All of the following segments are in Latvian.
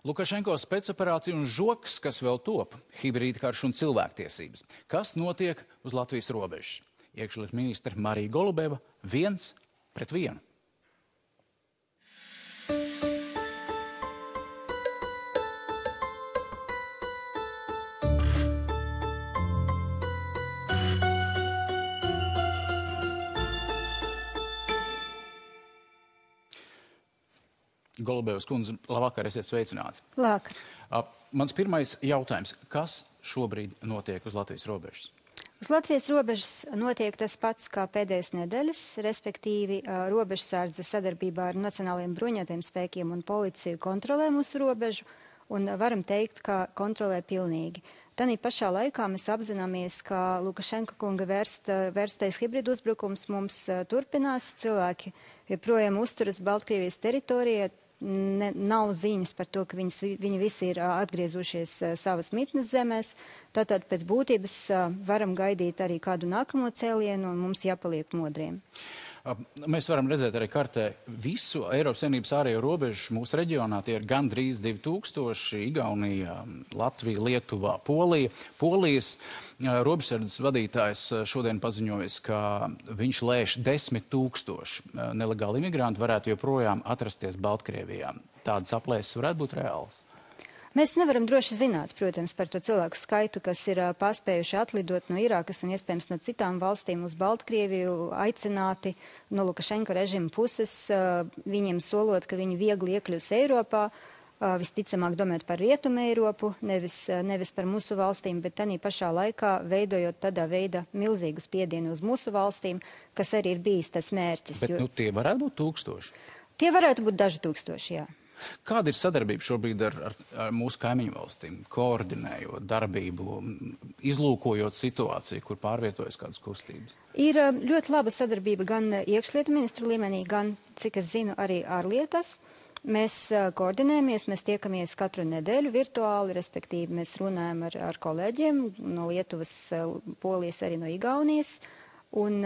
Lukašenko spēcoperācija un žoks, kas vēl top, hibrīda karš un cilvēktiesības. Kas notiek uz Latvijas robežas? Iekšlietu ministre Marija Golubeva 1-1. Golubevas kundze, labvakar, esiet sveicināti. Labvakar. Mans pirmais jautājums. Kas šobrīd notiek uz Latvijas robežas? Uz Latvijas robežas notiek tas pats kā pēdējās nedēļas, respektīvi robežsardze sadarbībā ar Nacionālajiem bruņotajiem spēkiem un policiju kontrolē mūsu robežu, un varam teikt, ka kontrolē pilnīgi. Tanī pašā laikā mēs apzināmies, ka Lukašenka kunga vērstais hibridu uzbrukums mums turpinās. Cilvēki joprojām uzturas Baltkrievijas teritorijā. Nav ziņas par to, ka viņi visi ir atgriezušies savas mitnes zemēs. Tātad pēc būtības varam gaidīt arī kādu nākamo cēlienu un mums jāpaliek modriem. Mēs varam redzēt arī kartē visu Eiropas Savienības ārējo robežu mūsu reģionā. Tie ir gandrīz 2000, Igaunija, Latvija, Lietuvā, Polija. Polijas robežsardzes vadītājs šodien paziņojas, ka viņš lēš 10 000 nelegāli imigranti varētu joprojām atrasties Baltkrievijā. Tādas aplēses varētu būt reālas. Mēs nevaram droši zināt, protams, par to cilvēku skaitu, kas ir paspējuši atlidot no Irākas un iespējams no citām valstīm uz Baltkrieviju, aicināti no Lukašenka režima puses, viņiem solot, ka viņi viegli iekļūs Eiropā, visticamāk domāt par Rietumu Eiropu, nevis par mūsu valstīm, bet tanī pašā laikā veidojot tādā veidā milzīgu spiedienu uz mūsu valstīm, kas arī ir bijis tas mērķis. Bet tie varētu būt 1000? Tie varētu būt daži tūkstoši, jā. Kāda ir sadarbība šobrīd ar mūsu kaimiņu valstīm, koordinējot darbību, izlūkojot situāciju, kur pārvietojas kādas kustības? Ir ļoti laba sadarbība gan iekšlietu ministru līmenī, gan, cik es zinu, arī ārlietās. Mēs koordinējamies, mēs tiekamies katru nedēļu virtuāli, respektīvi mēs runājam ar kolēģiem no Lietuvas, Polijas, arī no Igaunijas. Un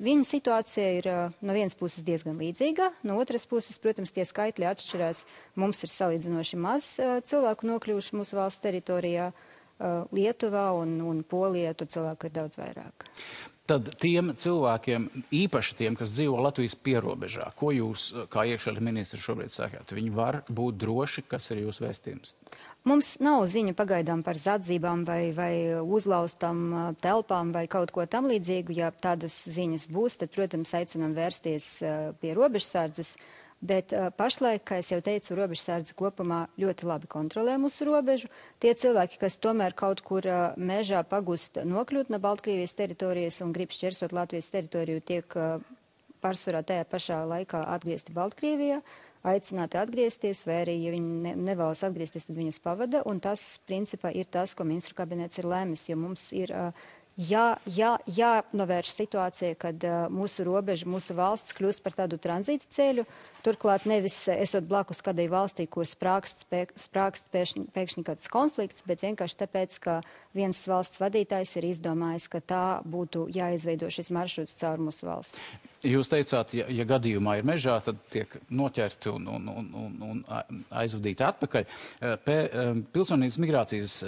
viņu situācija ir no vienas puses diezgan līdzīga, no otras puses, protams, tie skaitļi atšķirās. Mums ir salīdzinoši maz cilvēku nokļuvuši mūsu valsts teritorijā, Lietuvā un Polijā, to cilvēku ir daudz vairāk. Tad tiem cilvēkiem, īpaši tiem, kas dzīvo Latvijas pierobežā, ko jūs, kā iekšlietu ministrs, šobrīd sakāt? Viņi var būt droši, kas ir jūsu vēstījums? Mums nav ziņu pagaidām par zadzībām vai uzlaustām telpām vai kaut ko tam līdzīgu. Ja tādas ziņas būs, tad, protams, aicinām vērsties pie robežsardzes. Bet pašlaik, kā es jau teicu, robežsardze kopumā ļoti labi kontrolē mūsu robežu. Tie cilvēki, kas tomēr kaut kur mežā pagust nokļūt no Baltkrievijas teritorijas un grib šķersot Latvijas teritoriju, tiek pārsvarā tajā pašā laikā atgriezti Baltkrievijā, aicināti atgriezties, vai arī, ja viņi nevēlas atgriezties, tad viņus pavada. Un tas, principā, ir tas, ko ministru kabinets ir lēmis, jo mums ir jānovērš situācija, kad mūsu robeža, mūsu valsts kļūst par tādu tranzīta ceļu. Turklāt nevis esot blakus kādai valstī, kur sprākst pēkšņi kāds konflikts, bet vienkārši tāpēc, ka viens valsts vadītājs ir izdomājis, ka tā būtu jāizveido šis maršruts caur mūsu valsts. Jūs teicāt, ja gadījumā ir mežā, tad tiek noķerti un aizvadīti atpakaļ. Pilsonības migrācijas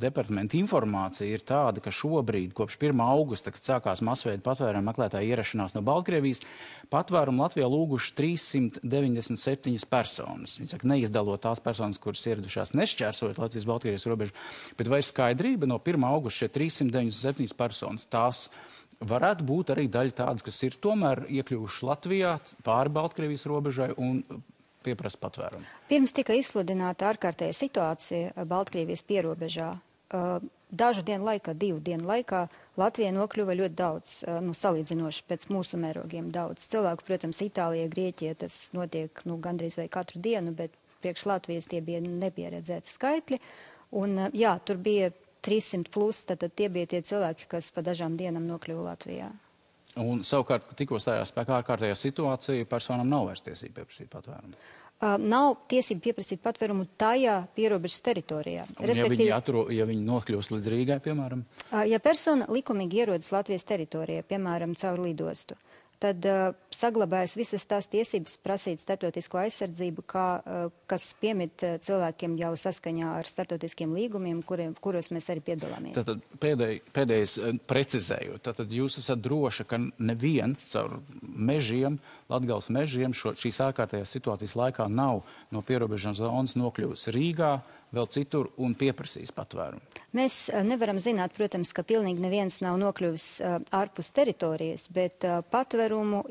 departamenta informācija ir tāda, ka šobrīd, kopš 1. augusta, kad sākās masveida patvērumu meklētāju ierašanās no Baltkrievijas, patvērumu Latvijā lūguši 397 personas. Viņi saka, neizdalot tās personas, kuras ieradušās nešķērsojot Latvijas-Baltkrievijas robežu, bet vai ir skaidrība no 1. augusta šie 397 personas, tās varētu būt arī daļa tādas, kas ir tomēr iekļuvuši Latvijā pāri Baltkrievijas robežai un pieprasa patvērumu? Pirms tika izsludināta ārkārtēja situācija Baltkrievijas pierobežā. Dažu dienu laikā, 2 dienu laikā Latvijā nokļuva ļoti daudz, salīdzinoši pēc mūsu mērogiem daudz. Cilvēku, protams, Itālijā, Grieķijā tas notiek gandrīz vai katru dienu, bet priekš Latvijas tie bija nepieredzēti skaitļi. Un jā, tur bija 300 plus, tad tie bija tie cilvēki, kas pa dažām dienām nokļuva Latvijā. Un savukārt, tikko stājās spēkā ārkārtējā situācija, personām nav vairs tiesība pieprasīt patvērumu? Nav tiesība pieprasīt patvērumu tajā pierobežas teritorijā. Ja viņi nokļūst līdz Rīgai, piemēram? Ja persona likumīgi ierodas Latvijas teritorijā, piemēram, caur lidostu, tad saglabājas visas tās tiesības prasīt starptautisko aizsardzību, kas piemīt cilvēkiem jau saskaņā ar starptautiskiem līgumiem, kuros mēs arī piedalāmies. Tātad pēdējais precizējot, tātad jūs esat droši, ka neviens caur mežiem, Latgales mežiem šīs ārkārtējās situācijas laikā nav no pierobežas zonas nokļuvusi Rīgā, vēl citur un pieprasīs patvērumu? Mēs nevaram zināt, protams, ka pilnīgi neviens nav nokļuvis ārpus teritorijas, bet patvērumu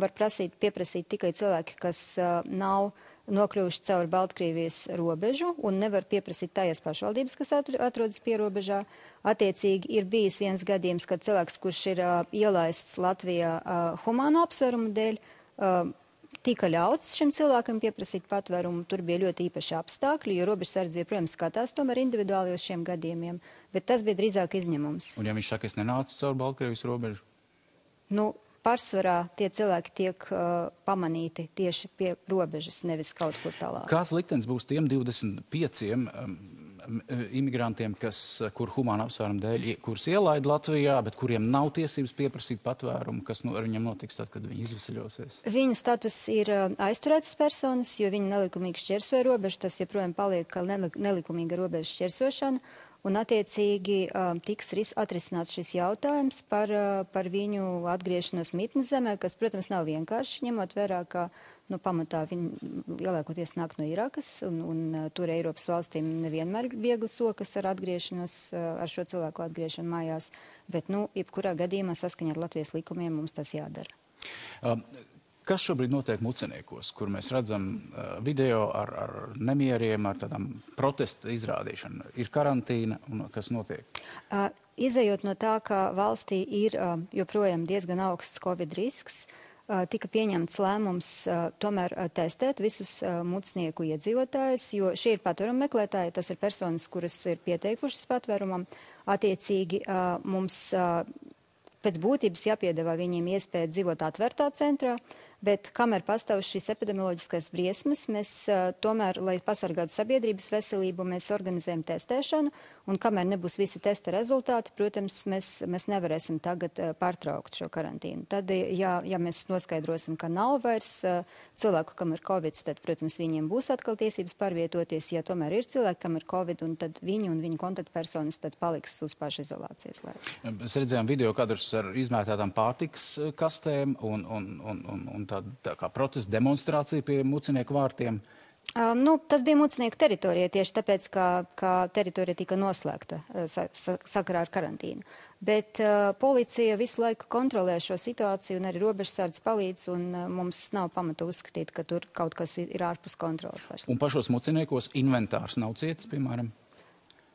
var pieprasīt tikai cilvēki, kas nav nokļuvuši caur Baltkrievijas robežu un nevar pieprasīt tajās pašvaldības, kas atrodas pierobežā. Attiecīgi ir bijis viens gadījums, kad cilvēks, kurš ir ielaists Latvijā humāno apsvērumu dēļ, tika ļauts šim cilvēkam pieprasīt patvērumu. Tur bija ļoti īpaši apstākļi, jo robežsardze joprojām skatās tomēr individuāli uz šiem gadījumiem, bet tas bija drīzāk izņemums. Un ja viņš saka, es nenācu caur Baltkrievijas robežu? Pārsvarā tie cilvēki tiek pamanīti tieši pie robežas, nevis kaut kur tālāk. Kāds liktenis būs tiem 25 imigrantiem, kur humāna apsvērumu dēļ, kurus ielaida Latvijā, bet kuriem nav tiesības pieprasīt patvērumu, kas ar viņiem notiks tad, kad viņi izvesaļosies? Viņu status ir aizturētas personas, jo viņi nelikumīgi šķērsoja robežu, tas joprojām paliek kā nelikumīga robežas šķērsošana, un attiecīgi tiks atrisināts šis jautājums par viņu atgriešanos mītnes zemē, kas, protams, nav vienkārši, ņemot vērā, ka pamatā viņi lielākoties nāk no Irakas, un tur Eiropas valstīm nevienmēr ir viegli sokas ar atgriešanos, ar šo cilvēku atgriešanu mājās, bet, jebkurā gadījumā saskaņā ar Latvijas likumiem mums tas jādara. Kas šobrīd notiek Muceniekos, kur mēs redzam video ar nemieriem, ar tādām protesta izrādīšanu? Ir karantīna un kas notiek? Izejot no tā, ka valstī ir joprojām diezgan augsts Covid risks, tika pieņemts lēmums tomēr testēt visus mucnieku iedzīvotājus, jo šie ir patvērumu meklētāji, tas ir personas, kuras ir pieteikušas patvērumam. Attiecīgi mums pēc būtības jāpiedāvā viņiem iespēja dzīvot atvērtā centrā, bet kamēr pastāv šīs epidemioloģiskās briesmas, mēs tomēr, lai pasargātu sabiedrības veselību, mēs organizējam testēšanu, un kamēr nebūs visi testa rezultāti, protams, mēs nevarēsim tagad pārtraukt šo karantīnu. Tad, ja mēs noskaidrosim, ka nav vairs cilvēku, kam ir Covid, tad, protams, viņiem būs atkal tiesības pārvietoties. Ja tomēr ir cilvēki, kam ir Covid, un tad viņi un viņu kontaktpersonas tad paliks uz pašizolācijas laiku. Mēs redzējām video kadrus ar izmētātām pārtikas kastēm un tā kā protesta demonstrācija pie Mucenieku vārtiem. Tas bija Mucenieku teritorija tieši tāpēc, ka teritorija tika noslēgta sakarā ar karantīnu. Bet policija visu laiku kontrolē šo situāciju un arī robežsardze palīdz, un mums nav pamata uzskatīt, ka tur kaut kas ir ārpus kontrolas. Un pašos Muceniekos inventārs nav cietis, piemēram?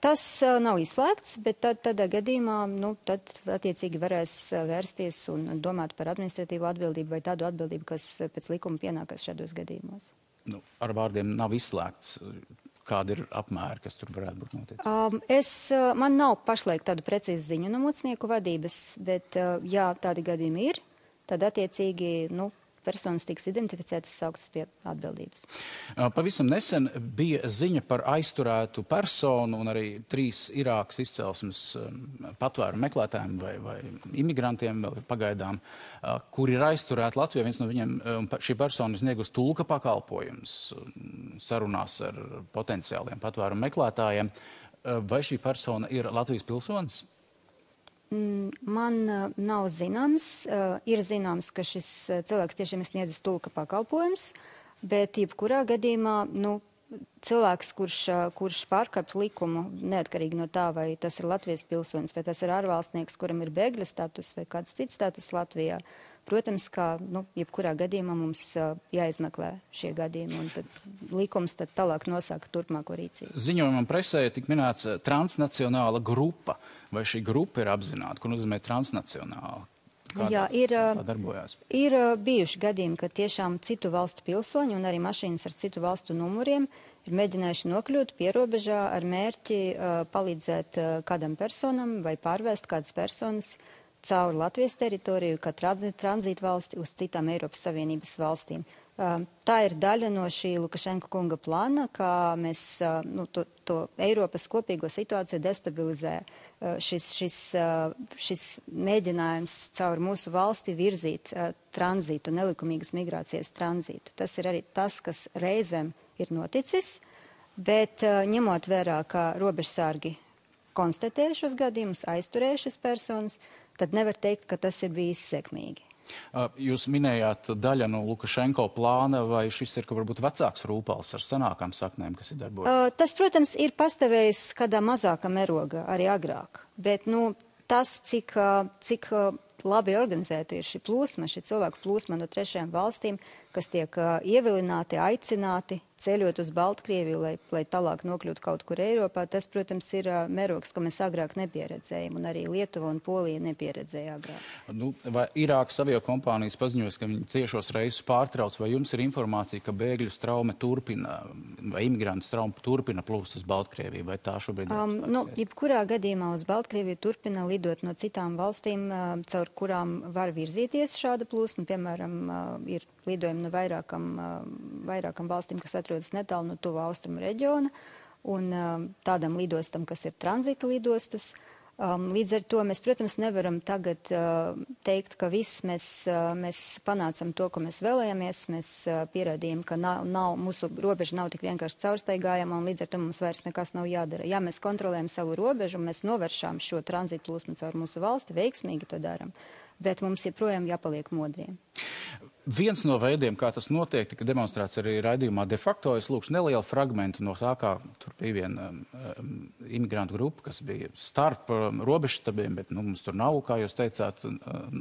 Tas nav izslēgts, bet tādā gadījumā tad attiecīgi varēs vērsties un domāt par administratīvo atbildību vai tādu atbildību, kas pēc likuma pienākas šādos gadījumos. Ar vārdiem nav izslēgts. Kāda ir apmēra, kas tur varētu būt noticis? Man nav pašlaik tādu precīzu ziņu no Mucenieku vadības, bet ja tādi gadījumi ir, tad attiecīgi, personas tiks identificētas, sauktas pie atbildības. Pavisam nesen bija ziņa par aizturētu personu un arī 3 Irākas izcelsmes patvērumu meklētājiem vai imigrantiem vēl pagaidām, kuri ir aizturēti Latvijā. Viens no viņiem, šī persona sniegus tulka pakalpojums sarunās ar potenciāliem patvērumu meklētājiem. Vai šī persona ir Latvijas pilsonis? Man nav zināms. Ir zināms, ka šis cilvēks tiešām ir sniedzis tulka pakalpojums, bet jebkurā gadījumā cilvēks, kurš pārkāpj likumu, neatkarīgi no tā, vai tas ir Latvijas pilsonis, vai tas ir ārvalstnieks, kuram ir bēgļa status vai kāds cits status Latvijā, protams, ka jebkurā gadījumā mums jāizmeklē šie gadījumi, un tad likums tad tālāk nosaka turpmāko rīcību. Ziņojumam presē tik minēts transnacionāla grupa. Vai šī grupa ir apzināta? Ko nozīmē transnacionāla? Jā, darbojās? Ir bijuši gadījumi, ka tiešām citu valstu pilsoņi un arī mašīnas ar citu valstu numuriem ir mēģinājuši nokļūt pierobežā ar mērķi palīdzēt kādam personam vai pārvēst kādas personas cauri Latvijas teritoriju, kā tranzītu valsti uz citām Eiropas Savienības valstīm. Tā ir daļa no šī Lukašenka kunga plāna, kā mēs to Eiropas kopīgo situāciju destabilizē šis mēģinājums caur mūsu valsti virzīt tranzītu, nelikumīgas migrācijas tranzītu. Tas ir arī tas, kas reizēm ir noticis, bet ņemot vērā, ka robežsargi konstatēja šos gadījumus, aizturēja šis personas, tad nevar teikt, ka tas ir bijis sekmīgi. Jūs minējāt daļa no Lukašenko plāna, vai šis ir, ka varbūt vecāks rūpals ar senākām saknēm, kas ir darbojas? Tas, protams, ir pastāvējis kādā mazākā mēroga arī agrāk, bet, tas, cik labi organizēta ir šī plūsma, šī cilvēku plūsma no trešajām valstīm, kas tiek ievilināti, aicināti ceļot uz Baltkrieviju, lai tālāk nokļūtu kaut kur Eiropā, tas, protams, ir mērogs, ko mēs agrāk nepieredzējām, un arī Lietuva un Polija nepieredzēja agrāk. Vai Irākas aviokompānijas paziņojas, ka viņi tiešos reisus pārtrauc, vai jums ir informācija, ka bēgļu straume turpina, vai imigrantu straume turpina plūst uz Baltkrieviju, vai tā šobrīd ir? Jebkurā gadījumā uz Baltkrieviju turpina lidot no citām valstīm, caur kurām var virzīties šāda plūsma, piemēram, ir lidojumi no vairākam valstīm, kas atrodas netālu no tuvu austrumu reģiona, un tādam lidostam, kas ir tranzita lidostas. Līdz ar to mēs, protams, nevaram tagad teikt, ka viss mēs panācam to, ko mēs vēlējāmies. Mēs pierādījām, ka mūsu robeža nav tik vienkārši caurstaigājama, un līdz ar to mums vairs nekas nav jādara. Ja mēs kontrolējam savu robežu, mēs novēršām šo tranzītu plūsmu caur mūsu valsti, veiksmīgi to daram, bet mums joprojām jāpaliek modriem. Viens no veidiem, kā tas notiek, tika demonstrēts arī raidījumā de facto. Es lūkšu nelielu fragmentu no tā, kā tur bija viena imigrantu grupa, kas bija starp robežstabiem, bet mums tur nav, kā jūs teicāt,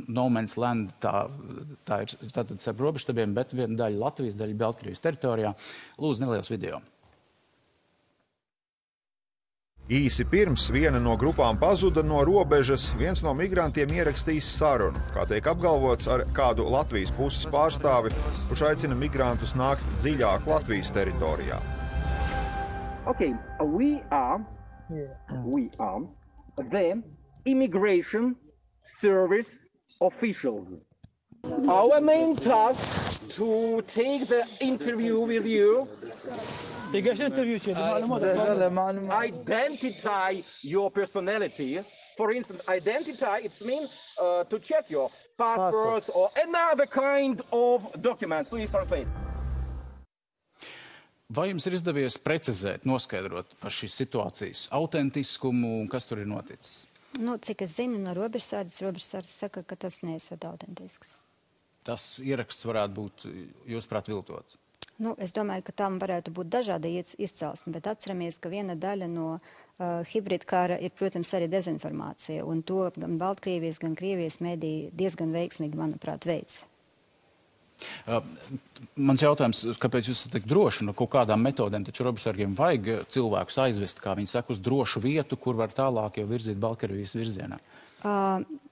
no man's land, tā ir tātad starp robežstabiem, bet viena daļa Latvijas, daļa Baltkrievijas teritorijā. Lūdzu, neliels video. Īsi pirms viena no grupām pazuda no robežas, viens no migrantiem ierakstījis sarunu, kā tiek apgalvots, ar kādu Latvijas puses pārstāvi, kurš aicina migrantus nākt dziļāk Latvijas teritorijā. Okay, we are the immigration service officials. Our main task to take the interview with you. Identify your personality. For instance, identify, it means to check your passports or another kind of documents. Please translate. Vai jums ir izdevies precizēt, noskaidrot par šīs situācijas autentiskumu un kas tur ir noticis? Cik es zinu no robežsardzes saka, ka tas neesot autentisks. Tas ieraksts varētu būt, jūsuprāt, viltots? Es domāju, ka tam varētu būt dažāda izcelsme, bet atceramies, ka viena daļa no hibrīda kara ir, protams, arī dezinformācija, un to gan Baltkrievijas, gan Krievijas mediji diezgan veiksmīgi, manuprāt, veids. Mans jautājums, kāpēc jūs esat tik droši no kaut kādām metodēm, taču robežsargiem vajag cilvēkus aizvest, kā viņi saka, uz drošu vietu, kur var tālāk jau virzīt Baltkrievijas virzienā?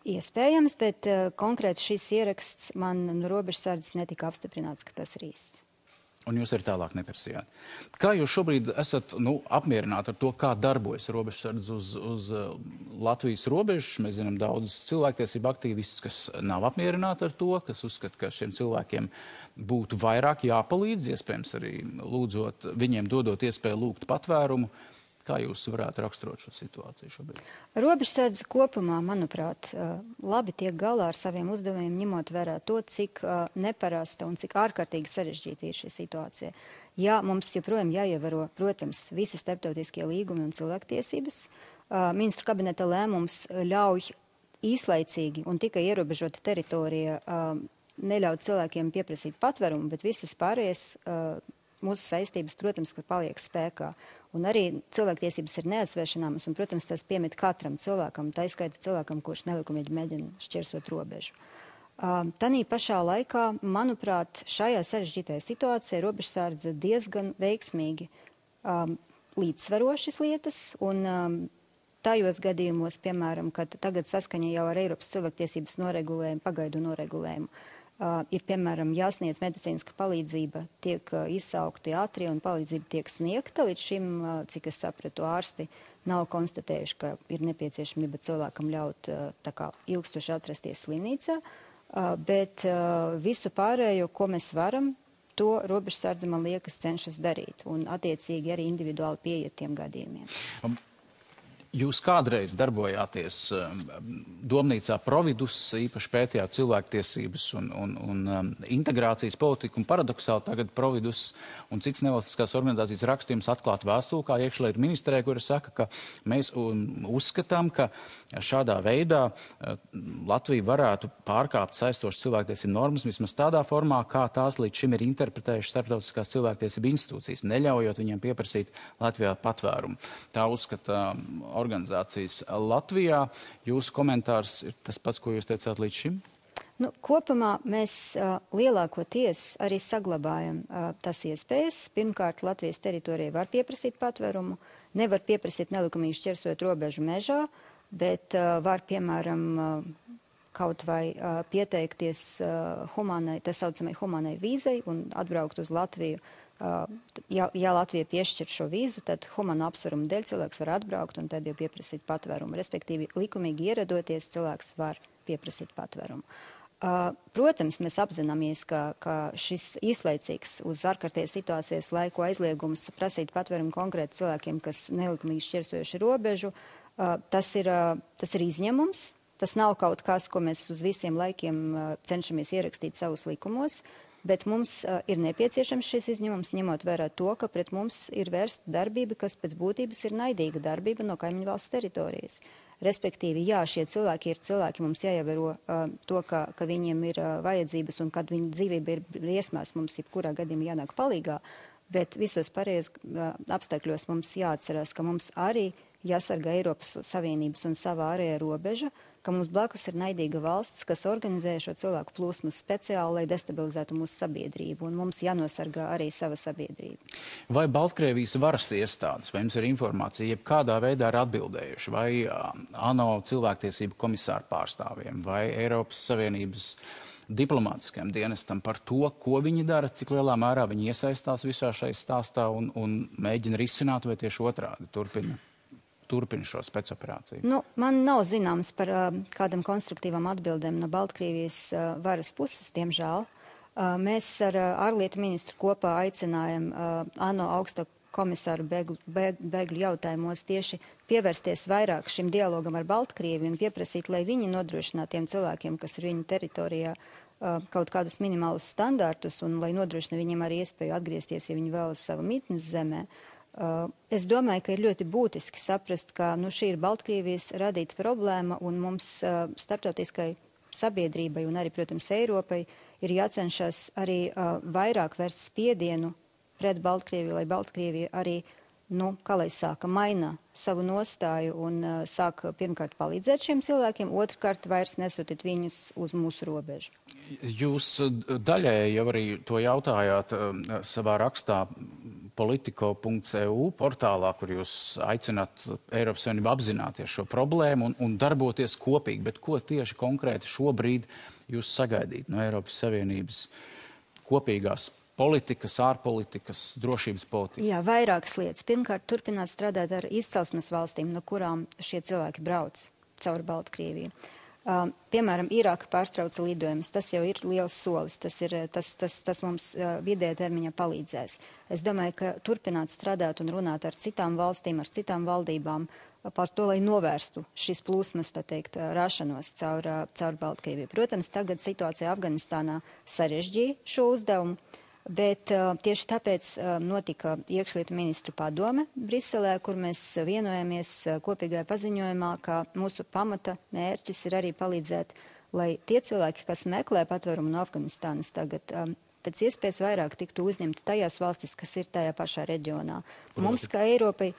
Iespējams, bet konkrēti šis ieraksts man no robežsardzes netika apstiprināts, ka tas ir īsts. Un jūs arī tālāk neprasījāt. Kā jūs šobrīd esat apmierināti ar to, kā darbojas robežsardze uz Latvijas robežas? Mēs zinām daudz cilvēktiesību aktīvistus, kas nav apmierināti ar to, kas uzskata, ka šiem cilvēkiem būtu vairāk jāpalīdz, iespējams arī lūdzot, viņiem dodot iespēju lūgt patvērumu. Kā jūs varētu raksturot šo situāciju šobrīd? Robežsardze kopumā, manuprāt, labi tiek galā ar saviem uzdevumiem, ņemot vērā to, cik neparasta un cik ārkārtīgi sarežģīta ir šī situācija. Jā, mums joprojām jāievēro, protams, visi starptautiskie līgumi un cilvēktiesības. Ministru kabineta lēmums ļauj īslaicīgi un tikai ierobežota teritorija neļaut cilvēkiem pieprasīt patvērumu, bet visas pārējās mūsu saistības, protams, ka paliek spēkā. Un arī cilvēktiesības ir neatsvēršanāmas, un, protams, tas piemīt katram cilvēkam, tā izskaita cilvēkam, kurš nelikumīgi mēģina šķērsot robežu. Tanī pašā laikā, manuprāt, šajā sarežģītajā situācijā robežsardze diezgan veiksmīgi līdzsvaro šīs lietas, un tajos gadījumos, piemēram, kad tagad saskaņa jau ar Eiropas cilvēktiesības noregulējumu, pagaidu noregulējumu, ir, piemēram, jāsniedz medicīniska palīdzība, tiek izsaukti ātrie un palīdzība tiek sniegta. Līdz šim, cik es sapratu, ārsti nav konstatējuši, ka ir nepieciešamība cilvēkam ļaut tā kā ilgstoši atrasties slimnīcā, bet visu pārējo, ko mēs varam, to robežsardze, man liekas, cenšas darīt un attiecīgi arī individuāli pieiet tiem gadījumiem. Jūs kādreiz darbojāties domnīcā Providus, īpaši pētījāt cilvēktiesības un integrācijas politiku, un paradoksāli tagad Providus un citas nevalstiskās organizācijas rakstījums atklāt vēstuli, kā iekšlietu ministrē, kura saka, ka mēs uzskatām, ka šādā veidā Latvija varētu pārkāpt saistošas cilvēktiesību normas vismaz tādā formā, kā tās līdz šim ir interpretējušas starptautiskās cilvēktiesību institūcijas, neļaujot viņiem pieprasīt Latvijā patvērumu. Tā uzskata organizācijas Latvijā. Jūsu komentārs ir tas pats, ko jūs teicāt līdz šim? Nu, kopumā mēs lielākoties arī saglabājam tas iespējas. Pirmkārt, Latvijas teritorijai var pieprasīt patvērumu, nevar pieprasīt nelikumīgi šķērsojot robežu mežā, bet var, piemēram, kaut vai pieteikties tā saucamai humānai vīzai un atbraukt uz Latviju. Ja Latvija piešķir šo vīzu, tad humāna apsvērumu dēļ cilvēks var atbraukt un tad jau pieprasīt patvērumu. Respektīvi, likumīgi ieradoties, cilvēks var pieprasīt patvērumu. Protams, mēs apzināmies, ka šis īslaicīgs uz ārkārtējas situācijas laiku aizliegums prasīt patvērumu konkrēti cilvēkiem, kas nelikumīgi šķērsojuši robežu, tas ir izņēmums. Tas nav kaut kas, ko mēs uz visiem laikiem cenšamies ierakstīt savus likumos. Bet mums ir nepieciešams šis izņēmums, ņemot vērā to, ka pret mums ir vērsta darbība, kas pēc būtības ir naidīga darbība no kaimiņu valsts teritorijas. Respektīvi, jā, šie cilvēki ir cilvēki, mums jāievēro to, ka viņiem ir vajadzības un kad viņu dzīvība ir briesmās, mums jebkurā gadījumā jānāk palīgā, bet visos pārējos apstākļos mums jāatcerās, ka mums arī jāsargā Eiropas Savienības un savā ārējā robeža, ka mums blakus ir naidīga valsts, kas organizē šo cilvēku plūsmu speciāli, lai destabilizētu mūsu sabiedrību, un mums jānosargā arī sava sabiedrība. Vai Baltkrievijas varas iestādes, vai jums ir informācija, jeb kādā veidā ir atbildējuši, vai ANO cilvēktiesību komisāru pārstāvjiem, vai Eiropas Savienības diplomātiskajam dienestam par to, ko viņi dara, cik lielā mērā viņi iesaistās visā šai stāstā un mēģina risināt, vai tieši otrādi turpina šo spēcoperāciju? Nu, man nav zināms par kādam konstruktīvam atbildēm no Baltkrievijas varas puses, diemžēl. Mēs ar ārlietu ministru kopā aicinājam ANO augsto komisāru bēgļu jautājumos tieši pievērsties vairāk šim dialogam ar Baltkrieviju un pieprasīt, lai viņi nodrošinātu tiem cilvēkiem, kas ir viņu teritorijā, kaut kādus minimālus standārtus un lai nodrošina viņiem arī iespēju atgriezties, ja viņi vēlas savu mītnes zemē. Es domāju, ka ir ļoti būtiski saprast, ka šī ir Baltkrievijas radīta problēma un mums starptautiskai sabiedrībai un arī, protams, Eiropai ir jācenšas arī vairāk vērst spiedienu pret Baltkrieviju, lai Baltkrievija arī, kā lai sāka, maina savu nostāju un sāk pirmkārt palīdzēt šiem cilvēkiem, otrkārt vairs nesūtīt viņus uz mūsu robežu. Jūs daļēji jau arī to jautājāt savā rakstā politico.eu portālā, kur jūs aicināt Eiropas Savienību apzināties šo problēmu un darboties kopīgi. Bet ko tieši konkrēti šobrīd jūs sagaidīt no Eiropas Savienības kopīgās politikas, ārpolitikas, drošības politikas? Jā, vairākas lietas. Pirmkārt, turpināt strādāt ar izcelsmes valstīm, no kurām šie cilvēki brauc caur Baltkrieviju. Piemēram, Irāka pārtrauca lidojumus. Tas jau ir liels solis. Tas mums vidējā termiņā palīdzēs. Es domāju, ka turpināt strādāt un runāt ar citām valstīm, ar citām valdībām par to, lai novērstu šīs plūsmas, tā teikt, rašanos caur Baltkrieviju. Protams, tagad situācija Afganistānā sarežģīja šo uzdevumu. Bet tieši tāpēc notika iekšlietu ministru padome Briselē, kur mēs vienojamies kopīgajā paziņojumā, ka mūsu pamata mērķis ir arī palīdzēt, lai tie cilvēki, kas meklē patvērumu no Afganistānas tagad, pēc iespējas vairāk tiktu uzņemti tajās valstis, kas ir tajā pašā reģionā. Mums, kā Eiropai,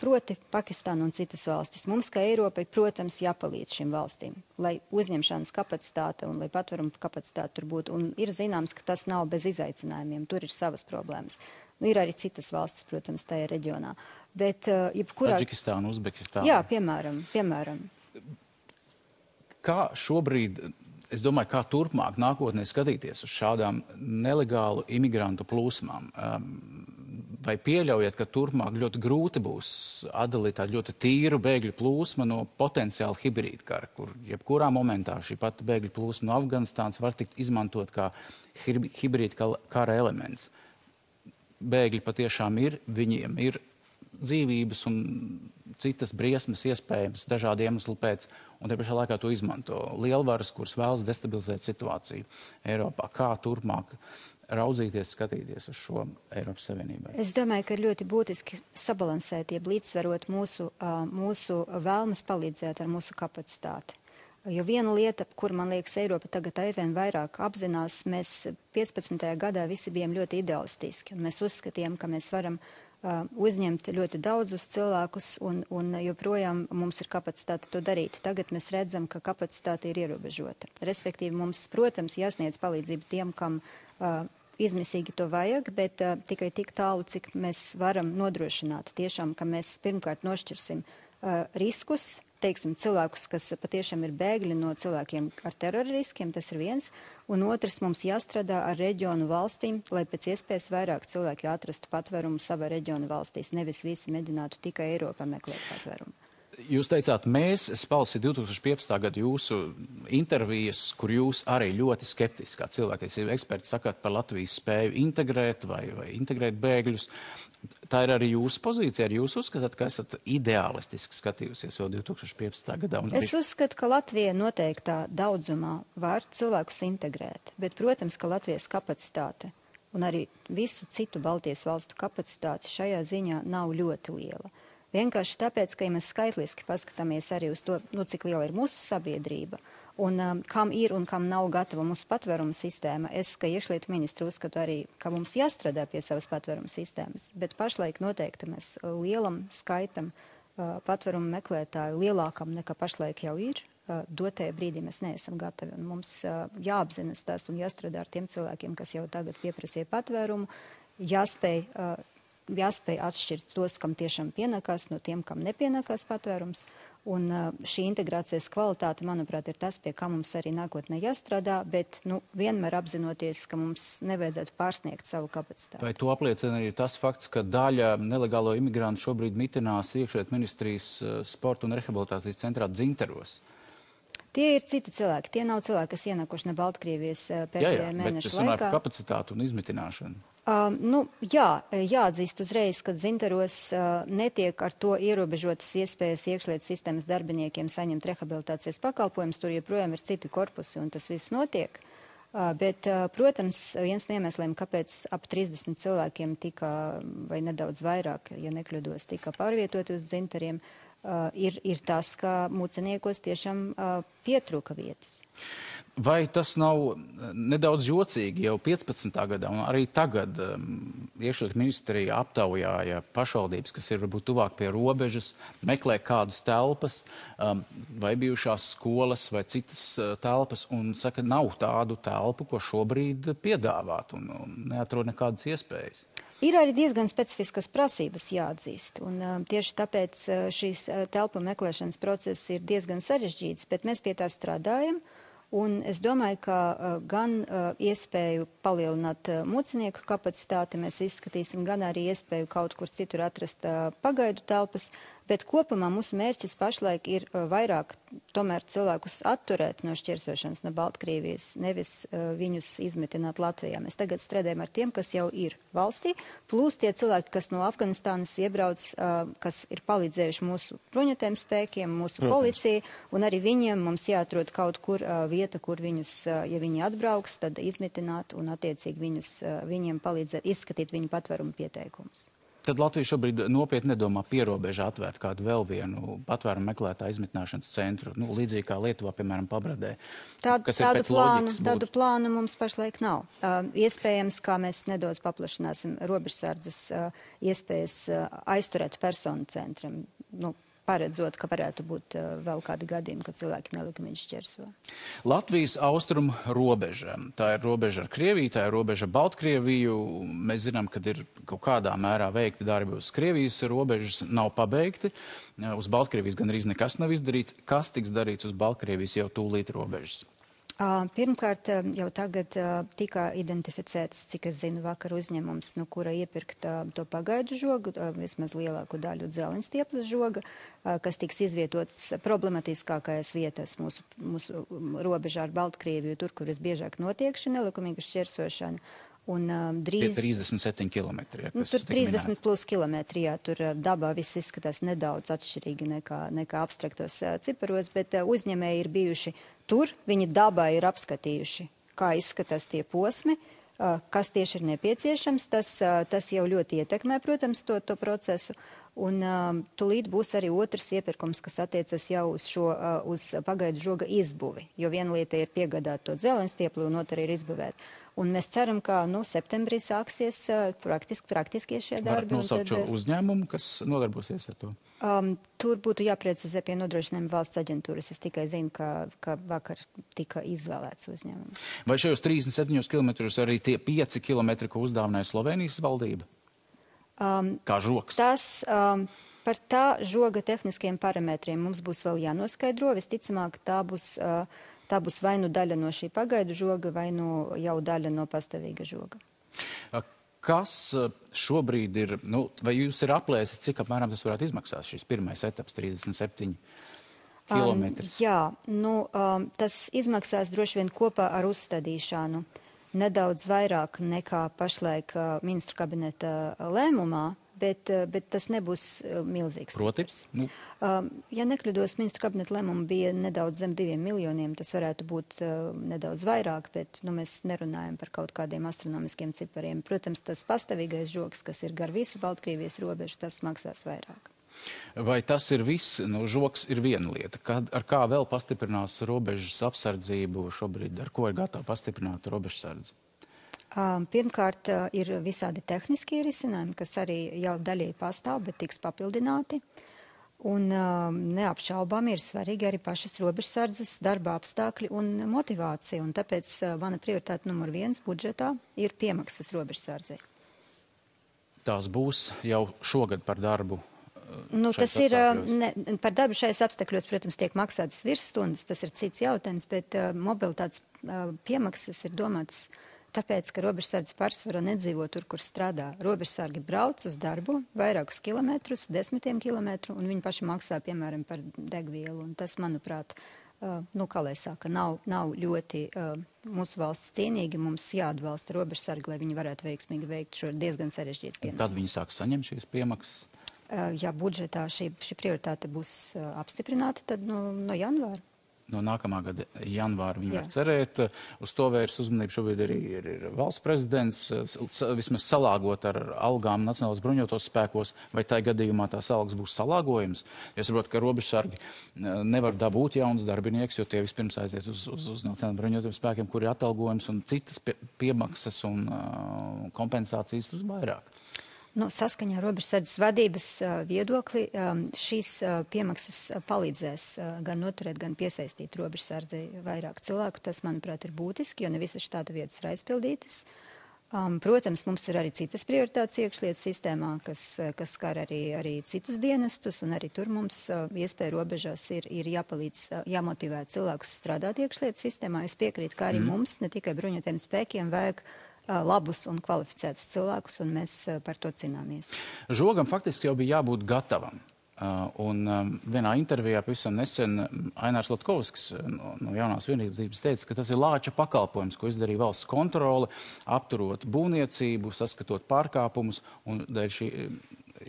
proti Pakistāna un citas valstis, mums, kā Eiropai, protams, jāpalīdz šīm valstīm, lai uzņemšanas kapacitāte un lai patvērumu kapacitāte tur būtu. Un ir zināms, ka tas nav bez izaicinājumiem, tur ir savas problēmas. Ir arī citas valstis, protams, tajā reģionā. Bet, Taģikistāna, Uzbekistāna. Jā, piemēram. Kā šobrīd, es domāju, kā turpmāk nākotnē skatīties uz šādām nelegālu imigrantu plūsmām? Vai pieļaujat, ka turpmāk ļoti grūti būs atdalīt tādu ļoti tīru bēgļu plūsmu no potenciāli hibrīda kara, kur jebkurā momentā šī pati bēgļu plūsma no Afganistānas var tikt izmantot kā hibrīda kara elements? Bēgļi patiešām ir, viņiem ir dzīvības un citas briesmas iespējams dažādu iemeslu pēc, un te pašā laikā to izmanto lielvaras, kuras vēlas destabilizēt situāciju Eiropā. Kā turpmāk raudzīties, skatīties uz šo Eiropas Savienībai? Es domāju, ka ir ļoti būtiski sabalansēt, jeb līdzsvarot mūsu vēlmes palīdzēt ar mūsu kapacitāti. Jo viena lieta, kur, man liekas, Eiropa tagad aizvien vairāk apzinās, mēs 15. gadā visi bijām ļoti idealistiski, un mēs uzskatījām, ka mēs varam uzņemt ļoti daudzus cilvēkus, un joprojām mums ir kapacitāte to darīt. Tagad mēs redzam, ka kapacitāte ir ierobežota. Respektīvi, mums, protams, jāsniedz palīdzību tiem, kam izmisīgi to vajag, bet tikai tik tālu, cik mēs varam nodrošināt tiešām, ka mēs pirmkārt nošķirsim riskus, teiksim, cilvēkus, kas patiešām ir bēgļi no cilvēkiem ar terora riskiem, tas ir viens, un otrs, mums jāstrādā ar reģionu valstīm, lai pēc iespējas vairāk cilvēki atrastu patvērumu savā reģionu valstīs, nevis visi mēģinātu tikai Eiropā meklēt patvērumu. Jūs teicāt, mēs, es palasīju 2015. gadu jūsu intervijas, kur jūs arī ļoti skeptiski, kā cilvēktiesību eksperti, sakāt par Latvijas spēju integrēt vai integrēt bēgļus. Tā ir arī jūsu pozīcija, arī jūs uzskatāt, ka esat ideālistiski skatījusies vēl 2015. gadā? Es uzskatu, ka Latvija noteiktā daudzumā var cilvēkus integrēt, bet, protams, ka Latvijas kapacitāte un arī visu citu Baltijas valstu kapacitāte šajā ziņā nav ļoti liela. Vienkārši tāpēc, ka ja mēs skaitliski paskatāmies arī uz to, cik liela ir mūsu sabiedrība un kam ir un kam nav gatava mūsu patvērumu sistēma, es, kā iekšlietu ministru, uzskatu arī, ka mums jāstrādā pie savas patvērumu sistēmas, bet pašlaik noteikti mēs lielam skaitam patvērumu meklētāju, lielākam nekā pašlaik jau ir, dotajā brīdī mēs neesam gatavi. Un mums jāapzinas tas un jāstrādā ar tiem cilvēkiem, kas jau tagad pieprasīja patvērumu, jāspēj atšķirt tos, kam tiešām pienākās, no tiem, kam nepienākās patvērums. Un šī integrācijas kvalitāte, manuprāt, ir tas, pie kā mums arī nākotnē jāstrādā, bet vienmēr apzinoties, ka mums nevajadzētu pārsniegt savu kapacitāti. Vai to apliecina arī tas fakts, ka daļa nelegālo imigrantu šobrīd mitinās iekšlietu ministrijas sporta un rehabilitācijas centrā Dzintaros? Tie ir citi cilvēki. Tie nav cilvēki, kas ienākuši no Baltkrievijas pēdējā mēneša laikā. Bet es runāju par kapacitātu un izmitināšanu. Jāatzīst uzreiz, ka Dzintaros netiek ar to ierobežotas iespējas iekšlietu sistēmas darbiniekiem saņemt rehabilitācijas pakalpojumus. Tur joprojām ir citi korpusi un tas viss notiek. Bet, protams, viens no iemesliem, kāpēc ap 30 cilvēkiem tika, vai nedaudz vairāk, ja nekļūdos, tika pārvietoti uz Dzintariem, ir tas, ka muceniekos tiešām pietrūka vietas. Vai tas nav nedaudz jocīgi jau 15. gadā un arī tagad iekšlietu ministrija aptaujāja pašvaldības, kas ir varbūt tuvāk pie robežas, meklē kādas telpas vai bijušās skolas vai citas telpas un saka, nav tādu telpu, ko šobrīd piedāvāt un neatrod nekādas iespējas? Ir arī diezgan specifiskas prasības jāatzīst, un tieši tāpēc šīs telpu meklēšanas process ir diezgan sarežģīts, bet mēs pie tā strādājam. Un es domāju, ka gan iespēju palielināt mucinieku kapacitāti mēs izskatīsim, gan arī iespēju kaut kur citur atrast pagaidu telpas, bet kopumā mūsu mērķis pašlaik ir vairāk tomēr cilvēkus atturēt no šķirsošanas no Baltkrievijas, nevis viņus izmetināt Latvijā. Mēs tagad strādājam ar tiem, kas jau ir valstī, plus tie cilvēki, kas no Afganistānas iebrauc, kas ir palīdzējuši mūsu bruņotajiem spēkiem, mūsu policijai, un arī viņiem mums jāatrod kaut kur vieta, kur viņus, ja viņi atbrauks, tad izmitināt un attiecīgi viņiem palīdzēt izskatīt viņu patvērumu pieteikumus. Tad Latvija šobrīd nopietni nedomā pierobežā atvērt kādu vēl vienu patvērumu meklētāju izmitināšanas centru, līdzīgi kā Lietuvā, piemēram, Pabradē. Tādu plānu mums pašlaik nav. Iespējams, kā mēs nedaudz paplašināsim robežsardzes iespējas aizturēt personu centram, paredzot, ka varētu būt vēl kādi gadījumi, kad cilvēki nelikumīgi šķērso. Latvijas austrumu robeža. Tā ir robeža ar Krieviju, tā ir robeža ar Baltkrieviju. Mēs zinām, ka ir kaut kādā mērā veikti darbi uz Krievijas robežas, nav pabeigti. Uz Baltkrievijas gan arī nekas nav izdarīts. Kas tiks darīts uz Baltkrievijas jau tūlīt robežas? Pirmkārt, jau tagad tika identificēts, cik es zinu, vakar uzņēmums, no kura iepirkt to pagaidu žogu, vismaz lielāku daļu dzelņstieples žoga, kas tiks izvietots problematiskākajās vietās mūsu robežā ar Baltkrieviju, tur, kur visbiežāk notiek šī nelikumīga šķērsošana. Un drīz... 37 kilometri. Ja, tur 30 plus kilometri, jā, tur dabā viss izskatās nedaudz atšķirīgi nekā abstraktos ciparos, bet uzņēmēji ir bijuši tur, viņi dabā ir apskatījuši, kā izskatās tie posmi, kas tieši ir nepieciešams. Tas jau ļoti ietekmē, protams, to procesu. Un tulīt būs arī otrs iepirkums, kas attiecas jau uz pagaidu žoga izbuvi, jo viena lieta ir piegādāt to dzeloņstiepli un otra ir izbuvēt. Un mēs ceram, ka septembrī sāksies praktiski šie darbi. Varat nosaukt šo uzņēmumu, kas nodarbosies ar to? Tur būtu jāprecizē pie nodrošinājuma valsts aģentūras. Es tikai zinu, ka vakar tika izvēlēts uzņēmums. Vai šajos 37 kilometrus arī tie 5 kilometri, ko uzdāvināja Slovenijas valdība? Kā žogs? Par tā žoga tehniskiem parametriem mums būs vēl jānoskaidro. Visticamāk, tā būs vai nu daļa no šī pagaidu žoga, vai nu jau daļa no pastāvīga žoga. Kas šobrīd ir, vai jūs ir aplēsis, cik apmēram tas varētu izmaksāt, šis pirmais etaps, 37 kilometri? Jā, tas izmaksās droši vien kopā ar uzstādīšanu nedaudz vairāk nekā pašlaik ministru kabineta lēmumā, bet tas nebūs milzīgs. Proti? Ja nekļūdos, ministru kabineta lēmuma bija nedaudz zem 2 miljoniem, tas varētu būt nedaudz vairāk, bet mēs nerunājam par kaut kādiem astronomiskiem cipariem. Protams, tas pastāvīgais žogs, kas ir gar visu Baltkrievijas robežu, tas maksās vairāk. Vai tas ir viss? Žogs ir viena lieta. Ar kā vēl pastiprinās robežas apsardzību šobrīd? Ar ko ir gatava pastiprināt robežsardzi? Pirmkārt, ir visādi tehniskie risinājumi, kas arī jau daļēji pastāv, bet tiks papildināti. Un neapšaubām ir svarīgi arī pašas robežsardzes darba apstākļi un motivācija. Un tāpēc mana prioritāte numur 1 budžetā ir piemaksas robežsardzei. Tās būs jau šogad par darbu? Tas ir, par darbu šais apstākļos, protams, tiek maksātas virsstundas, tas ir cits jautājums, bet mobilitātes piemaksas ir domāts tāpēc, ka robežsardze pārsvarā nedzīvo tur, kur strādā. Robežsargi brauc uz darbu vairākus kilometrus, 10 kilometru, un viņi paši maksā, piemēram, par degvielu. Un tas, manuprāt, kā lai saka, nav ļoti mūsu valsts cienīgi. Mums jāatbalsta robežsargi, lai viņi varētu veiksmīgi veikt šo diezgan sarežģītu pienākumu. Kad viņi sāks saņemt šīs piemaksas? Ja budžetā šī prioritāte būs apstiprināta, tad no janvāra. No nākamā gada janvāra viņi var cerēt. Uz to vērs uzmanību šobrīd arī ir valsts prezidents, vismaz salāgot ar algām Nacionālās bruņotos spēkos, vai tā gadījumā tās algas būs salāgojums. Es saprotu, ka robežsargi nevar dabūt jaunus darbinieks, jo tie vispirms aiziet uz Nacionālajiem bruņotiem spēkiem, kur ir atalgojums un citas piemaksas un kompensācijas uz vairāk. Saskaņā ar robežsardzes vadības viedokli šīs piemaksas palīdzēs gan noturēt, gan piesaistīt robežsardzei vairāk cilvēku. Tas, manuprāt, ir būtiski, jo ne visas štāta vietas ir aizpildītas. Protams, mums ir arī citas prioritātes iekšlietu sistēmā, kas skar arī citus dienestus, un arī tur mums iespēja robežās ir jāmotivē cilvēkus strādāt iekšlietu sistēmā. Es piekrītu, ka arī mums, ne tikai bruņotiem spēkiem, vajag labus un kvalificētus cilvēkus, un mēs par to cīnāmies. Žogam faktiski jau bija jābūt gatavam. Un vienā intervijā pavisam nesen Ainārs Latkovskis no Jaunās vienības teica, ka tas ir lāča pakalpojums, ko izdarīja valsts kontrole, apturot būvniecību, saskatot pārkāpumus, un dēļ šī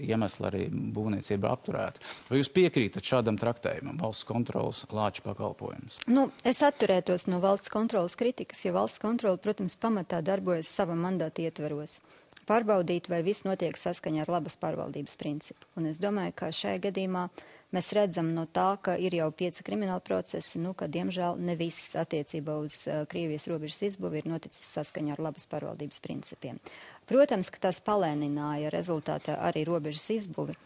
iemesla arī būvniecība apturēta. Vai jūs piekrītat šādam traktējumam, valsts kontroles lāča pakalpojums? Es atturētos no valsts kontroles kritikas, jo valsts kontrole, protams, pamatā darbojas sava mandāta ietveros. Pārbaudīt, vai viss notiek saskaņā ar labas pārvaldības principu. Un es domāju, ka šajā gadījumā mēs redzam no tā, ka ir jau 5 krimināli procesi, ka diemžēl ne viss attiecībā uz Krievijas robežas izbuvi ir noticis saskaņā ar labas pārvaldības principiem. Protams, ka tas palēnināja rezultātā arī robežas izbuvi,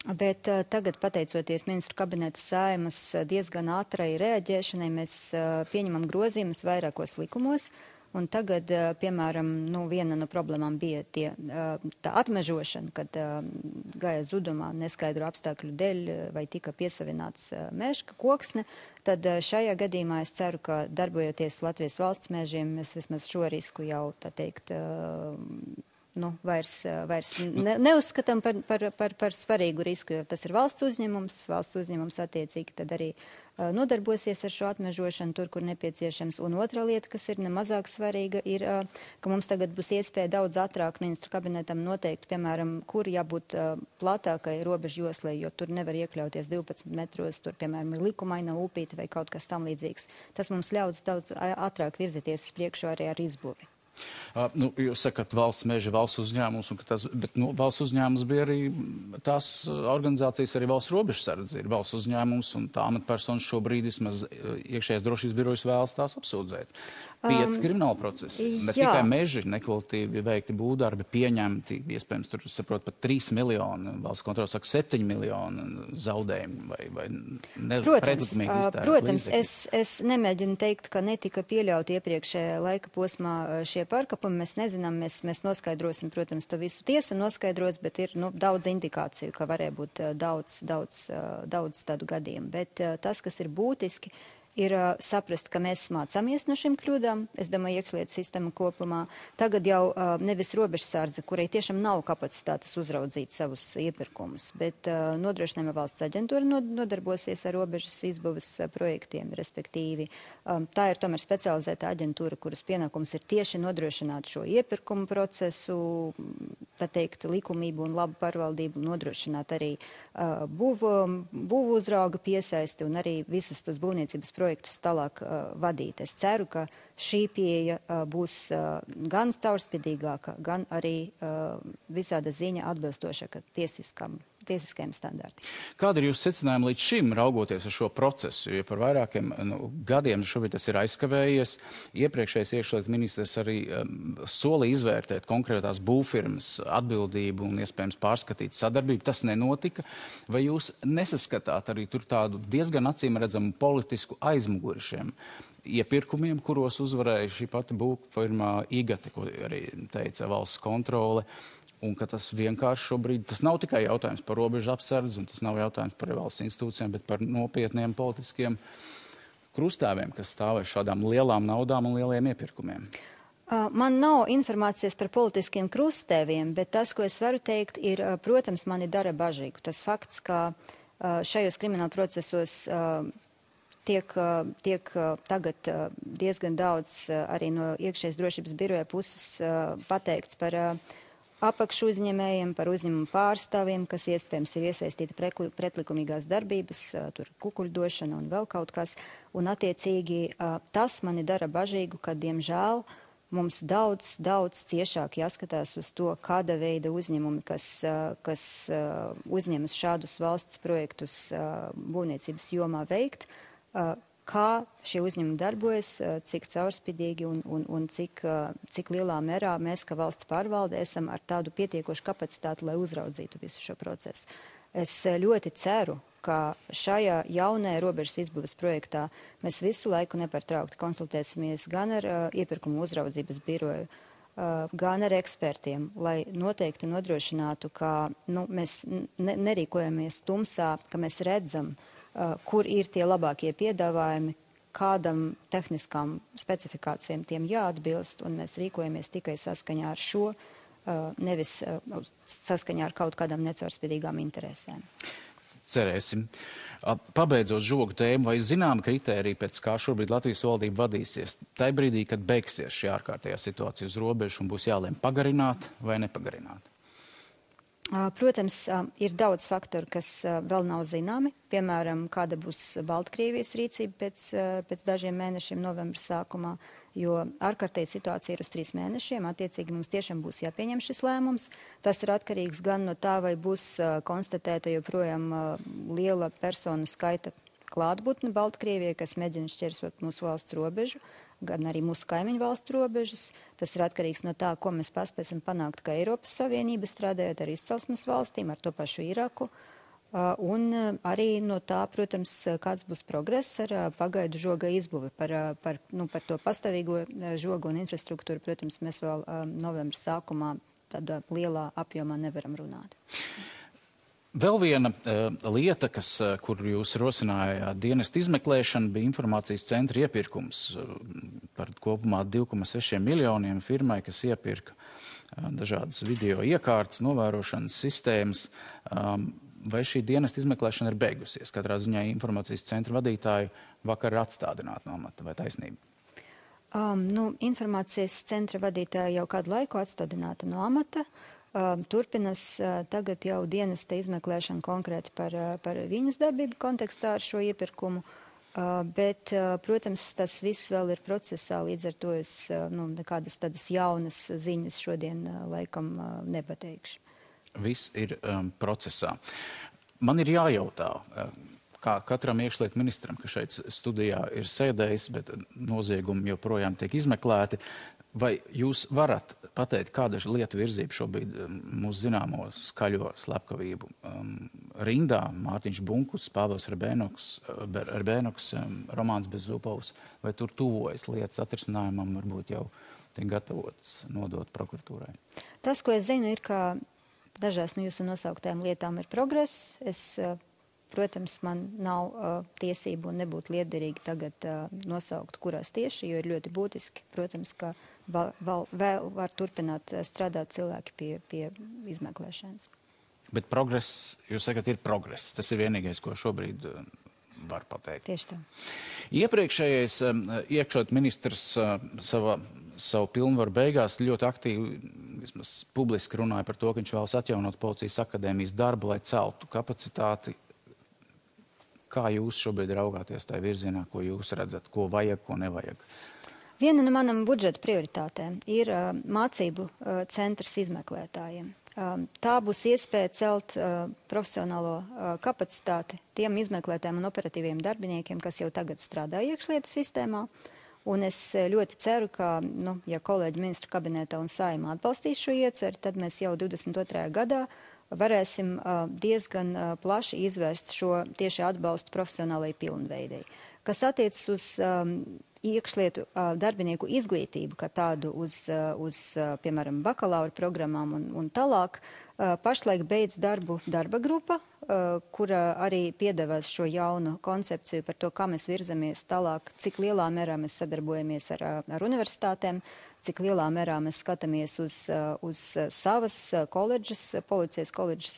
bet tagad, pateicoties ministru kabineta Saeimas diezgan ātrai reaģēšanai, mēs pieņemam grozījumus vairākos likumos. Un tagad, piemēram, viena no problēmām bija tā atmežošana, kad gāja zudumā neskaidru apstākļu dēļ vai tika piesavināts meža koksne. Tad šajā gadījumā es ceru, ka darbojoties Latvijas valsts mežiem, mēs vismaz šo risku jau, vairs neuzskatām par svarīgu risku, jo tas ir valsts uzņēmums attiecīgi tad arī nodarbosies ar šo atmežošanu tur, kur nepieciešams. Un otra lieta, kas ir nemazāk svarīga, ir, ka mums tagad būs iespēja daudz ātrāk ministru kabinetam noteikt, piemēram, kur jābūt platākai robežu joslai, jo tur nevar iekļauties 12 metros, tur, piemēram, ir likumaina upīte vai kaut kas tam līdzīgs. Tas mums ļaus daudz ātrāk virzīties uz priekšu arī ar izbūvi. Jūs sakat valsts meža, valsts uzņēmums, bet valsts uzņēmums bija arī tās organizācijas, arī valsts robežsardze ir valsts uzņēmums, un tā amatpersonas šobrīd vismaz iekšējās drošības birojas vēlas tās apsūdzēt. 5 krimināla procesi, bet tikai meži nekvalitīvi veikti būvdarbi pieņemti, iespējams, tur, saprot, pat 3 miljoni, valsts kontrole saka 7 miljoni zaudējumi vai pretlikumīgi iztērēt. Protams, es nemēģinu teikt, ka netika pieļauti iepriekšējā laika posmā šie pārkāpumi. Mēs nezinām, mēs noskaidrosim, protams, to visu tiesa noskaidros, bet ir daudz indikāciju, ka varēja būt daudz tādu gadījumu. Bet tas, kas ir būtiski, ir saprast, ka mēs mācāmies no šīm kļūdām. Es domāju, iekšlietu sistēma kopumā. Tagad jau nevis robežsardze, kurai tiešām nav kapacitātes uzraudzīt savus iepirkumus, bet nodrošinājuma valsts aģentūra nodarbosies ar robežas izbūves projektiem, respektīvi. Tā ir tomēr specializēta aģentūra, kuras pienākums ir tieši nodrošināt šo iepirkumu procesu, tā teikt, likumību un labu pārvaldību, nodrošināt arī būvu uzrauga piesaisti un arī visus tos būvniecības projektus tālāk vadīt. Es ceru, ka šī pieeja būs gan caurspīdīgāka, gan arī visāda ziņa atbilstošāka tiesiskajiem standartiem. Kāda ir jūsu secinājuma līdz šim, raugoties uz šo procesu? Jo par vairākiem gadiem šobrīd tas ir aizkavējies. Iepriekšējais iekšlietu ministrs arī solīja izvērtēt konkrētās būvfirmas atbildību un iespējams pārskatīt sadarbību. Tas nenotika. Vai jūs nesaskatāt arī tur tādu diezgan acīm redzamu politisku aizmuguri šiem iepirkumiem, kuros uzvarēja šī pati būvfirma Igate, ko arī teica valsts kontrole? Un ka tas vienkārši šobrīd, tas nav tikai jautājums par robežu apsardzi, un tas nav jautājums par valsts institūcijām, bet par nopietniem politiskiem krustāviem, kas stāvēs šādām lielām naudām un lieliem iepirkumiem. Man nav informācijas par politiskiem krustēviem, bet tas, ko es varu teikt, ir, protams, mani dara bažīgu. Tas fakts, ka šajos krimināla procesos tiek tagad diezgan daudz arī no iekšējas drošības biroja puses pateikts par apakšu uzņēmējiem, par uzņēmumu pārstāvjiem, kas iespējams ir iesaistīti pretlikumīgās darbības, tur kukuļdošana un vēl kaut kas. Un attiecīgi tas mani dara bažīgu, ka, diemžēl, mums daudz ciešāk jāskatās uz to, kāda veida uzņēmumi, kas uzņemas šādus valsts projektus būvniecības jomā veikt, kā šie uzņēmumi darbojas, cik caurspīdīgi un cik lielā mērā mēs, kā valsts pārvalde, esam ar tādu pietiekošu kapacitāti, lai uzraudzītu visu šo procesu. Es ļoti ceru, ka šajā jaunajā robežas izbūves projektā mēs visu laiku nepārtraukti konsultēsimies gan ar iepirkumu uzraudzības biroju, gan ar ekspertiem, lai noteikti nodrošinātu, ka mēs nerīkojamies tumsā, ka mēs redzam, kur ir tie labākie piedāvājumi, kādam tehniskām specifikācijām tiem jāatbilst, un mēs rīkojamies tikai saskaņā ar šo, nevis saskaņā ar kaut kādām necaurspīdīgām interesēm. Cerēsim. Pabeidzot žogu tēmu, vai zinām kritēriju, pēc kā šobrīd Latvijas valdība vadīsies? Tai brīdī, kad beigsies šī ārkārtējā situācija uz robežu un būs jālēm pagarināt vai nepagarināt? Protams, ir daudz faktoru, kas vēl nav zināmi. Piemēram, kāda būs Baltkrievijas rīcība pēc dažiem mēnešiem novembra sākumā, jo ārkārtēja situācija ir uz 3 mēnešiem. Attiecīgi mums tiešām būs jāpieņem šis lēmums. Tas ir atkarīgs gan no tā, vai būs konstatēta joprojām liela personu skaita klātbūtne Baltkrievijai, kas mēģina šķērsot mūsu valsts robežu, gan arī mūsu kaimiņu valstu robežas. Tas ir atkarīgs no tā, ko mēs paspēsim panākt, kā Eiropas Savienība strādājot ar izcelsmes valstīm, ar to pašu Iraku. Un arī no tā, protams, kāds būs progress ar pagaidu žoga izbūvi. Par to pastāvīgo žogu un infrastruktūru, protams, mēs vēl novembra sākumā tādā lielā apjomā nevaram runāt. Vēl viena lieta, kur jūs rosinājāt dienestu izmeklēšanu, bija informācijas centra iepirkums par kopumā 2,6 miljoniem firmai, kas iepirka dažādas video iekārtas, novērošanas sistēmas. Vai šī dienesta izmeklēšana ir beigusies? Katrā ziņā informācijas centra vadītāju vakar ir atstādināti no amata, vai taisnība? Informācijas centra vadītāja jau kādu laiku atstādināta no amata. Turpinas tagad jau dienesta izmeklēšana konkrēti par viņas darbību kontekstā ar šo iepirkumu. Bet, protams, tas viss vēl ir procesā, līdz ar to es nekādas tādas jaunas ziņas šodien laikam nepateikšu. Viss ir procesā. Man ir jājautā, kā katram iekšlietu ministram, kas šeit studijā ir sēdējis, bet noziegumi joprojām tiek izmeklēti, vai jūs varat pateikt, kāda lietu virzība šobrīd mūsu zināmo skaļo slepkavību rindā? Mārtiņš Bunkus, Pāvils Erbēnoks, Romāns Bezzupovs, vai tur tuvojas lietas atrisinājumam, varbūt jau tiek gatavots nodot prokuratūrai? Tas, ko es zinu, ir, ka dažās no jūsu nosauktajām lietām ir progress. Protams, man nav tiesību un nebūtu liederīgi tagad nosaukt, kurās tieši, jo ir ļoti būtiski, protams, ka vēl var turpināt strādāt cilvēki pie izmeklēšanas. Bet progress, jūs sakat, ir progress. Tas ir vienīgais, ko šobrīd var pateikt. Tieši tā. Iepriekšējais iekšlietu ministrs savu pilnvaru beigās ļoti aktīvi, vismaz publiski runāja par to, ka viņš vēlas atjaunot policijas akadēmijas darbu, lai celtu kapacitāti. Kā jūs šobrīd raugāties tajā virzienā, ko jūs redzat, ko vajag, ko nevajag? Viena no manam budžeta prioritātēm ir mācību centrs izmeklētājiem. Tā būs iespēja celt profesionālo kapacitāti tiem izmeklētājiem un operatīviem darbiniekiem, kas jau tagad strādā iekšlietu sistēmā. Un es ļoti ceru, ka, ja kolēģi ministru kabinetā un Saeimā atbalstīs šo ieceri, tad mēs jau 22. gadā varēsim diezgan plaši izvērst šo tieši atbalstu profesionālajai pilnveidei. Kas attiecas uz iekšlietu darbinieku izglītību, kā tādu uz piemēram, bakalaura programmām un tālāk, pašlaik beidz darbu darba grupa, kura arī piedāvās šo jaunu koncepciju par to, kā mēs virzamies tālāk, cik lielā mērā mēs sadarbojamies ar universitātēm, cik lielā mērā mēs skatāmies uz savas koledžas, policijas koledžas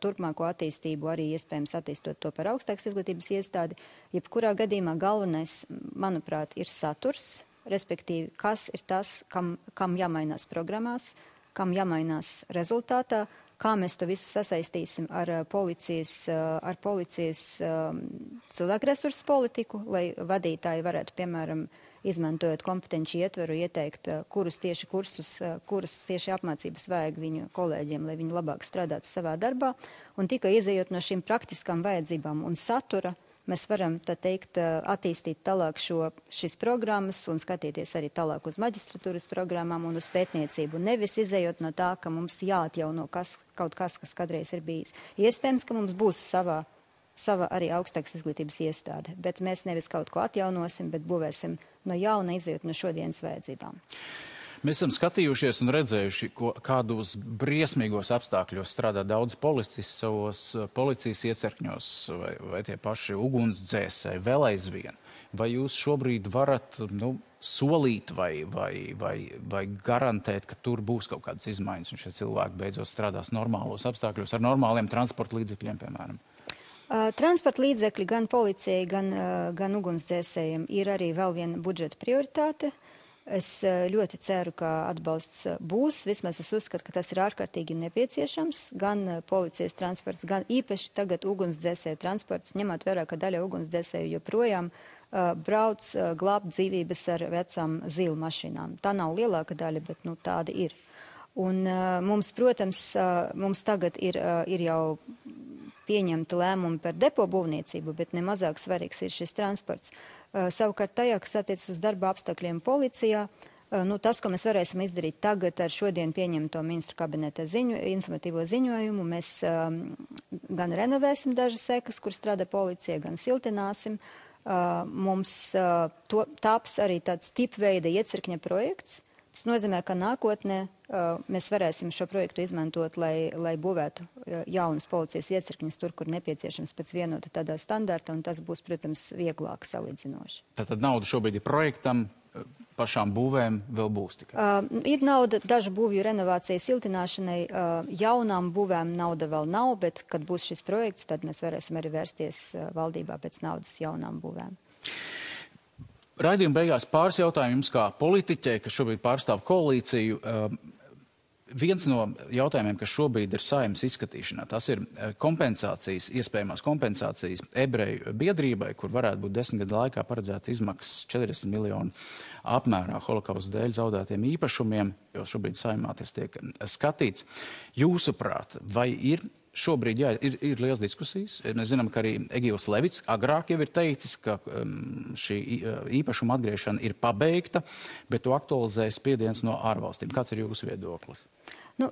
turpmāko attīstību, arī iespējams attīstot to par augstākas izglītības iestādi. Jebkurā gadījumā galvenais, manuprāt, ir saturs, respektīvi, kas ir tas, kam jāmainās programmās, kam jāmainās rezultātā, kā mēs to visu sasaistīsim ar policijas cilvēku resursu politiku, lai vadītāji varētu, piemēram, izmantojot kompetenci ietveru, ieteikt, kurus tieši kursus, kuras tieši apmācības vajag viņu kolēģiem, lai viņi labāk strādātu savā darbā. Un tikai izējot no šīm praktiskām vajadzībām un satura, mēs varam, tā teikt, attīstīt tālāk šīs programmas un skatīties arī tālāk uz maģistratūras programmām un uz pētniecību. Nevis izējot no tā, ka mums jāatjauno kaut kas, kas kādreiz ir bijis. Iespējams, ka mums būs sava arī augstākas izglītības iestāde, bet mēs nevis kaut ko atjaunosim, bet būvēsim no jauna, izējot no šodienas vajadzībām. Mēs esam skatījušies un redzējuši, kādos briesmīgos apstākļos strādā daudz policisti savos policijas iecirkņos vai tie paši ugunsdzēsēji vēl aizvien. Vai jūs šobrīd varat solīt vai garantēt, ka tur būs kaut kādas izmaiņas un šie cilvēki beidzot strādās normālos apstākļos ar normāliem transporta līdzekļiem, piemēram? Transporta līdzekļi gan policijai, gan ugunsdzēsējiem ir arī vēl viena budžeta prioritāte. Es ļoti ceru, ka atbalsts būs. Vismaz es uzskatu, ka tas ir ārkārtīgi nepieciešams. Gan policijas transports, gan īpaši tagad ugunsdzēsēju transports, ņemot vērā, ka daļa ugunsdzēsēju joprojām brauc glābt dzīvības ar vecām zilu mašīnām. Tā nav lielāka daļa, bet tāda ir. Un mums, protams, mums tagad ir jau pieņemta lēmumi par depo būvniecību, bet nemazāk svarīgs ir šis transports. Savukārt tajā, kas attiecas uz darba apstākļiem policijā, tas, ko mēs varēsim izdarīt tagad ar šodien pieņemto ministru kabineta informatīvo ziņojumu, mēs gan renovēsim dažas sekas, kur strādā policija, gan siltināsim. Mums taps arī tāds tipveida iecirkņa projekts. Tas nozīmē, ka nākotnē mēs varēsim šo projektu izmantot, lai būvētu jaunas policijas iecirkņus tur, kur nepieciešams pēc vienota tādā standarta, un tas būs, protams, vieglāk salīdzinoši. Tātad nauda šobrīd ir projektam, pašām būvēm vēl būs tikai? Ir nauda dažu būvju renovācijas siltināšanai, jaunām būvēm nauda vēl nav, bet, kad būs šis projekts, tad mēs varēsim arī vērsties valdībā pēc naudas jaunām būvēm. Raidījuma beigās pāris jautājumu jums kā politiķei, kas šobrīd pārstāv koalīciju. Viens no jautājumiem, kas šobrīd ir Saeimas izskatīšanā, tas ir kompensācijas, iespējamās kompensācijas ebreju biedrībai, kur varētu būt 10 gadu laikā paredzēta izmaksas 40 miljonu apmērā holokausta dēļ zaudētiem īpašumiem, jo šobrīd Saeimā tas tiek skatīts. Jūsuprāt, vai ir šobrīd, jā, ir liels diskusijas. Mēs zinām, ka arī Egils Levits agrāk jau ir teicis, ka šī īpašuma atgriešana ir pabeigta, bet to aktualizē spiediens no ārvalstīm. Kāds ir jūsu viedoklis?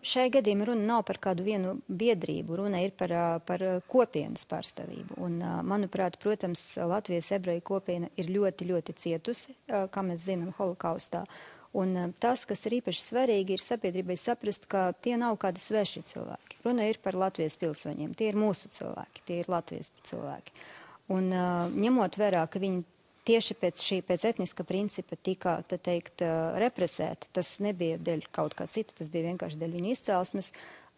Šai gadījumā runa nav par kādu vienu biedrību, runa ir par kopienas pārstāvību. Un, manuprāt, protams, Latvijas ebreju kopiena ir ļoti, ļoti cietusi, kā mēs zinām, holokaustā. Un tas, kas ir īpaši svarīgi, ir sabiedrībai saprast, ka tie nav kādi sveši cilvēki. Runa ir par Latvijas pilsoņiem. Tie ir mūsu cilvēki, tie ir Latvijas cilvēki. Un ņemot vērā, ka viņi tieši pēc etniska principa tika, tā teikt, represēti, tas nebija dēļ kaut kā cita, tas bija vienkārši dēļ viņa izcelsmes.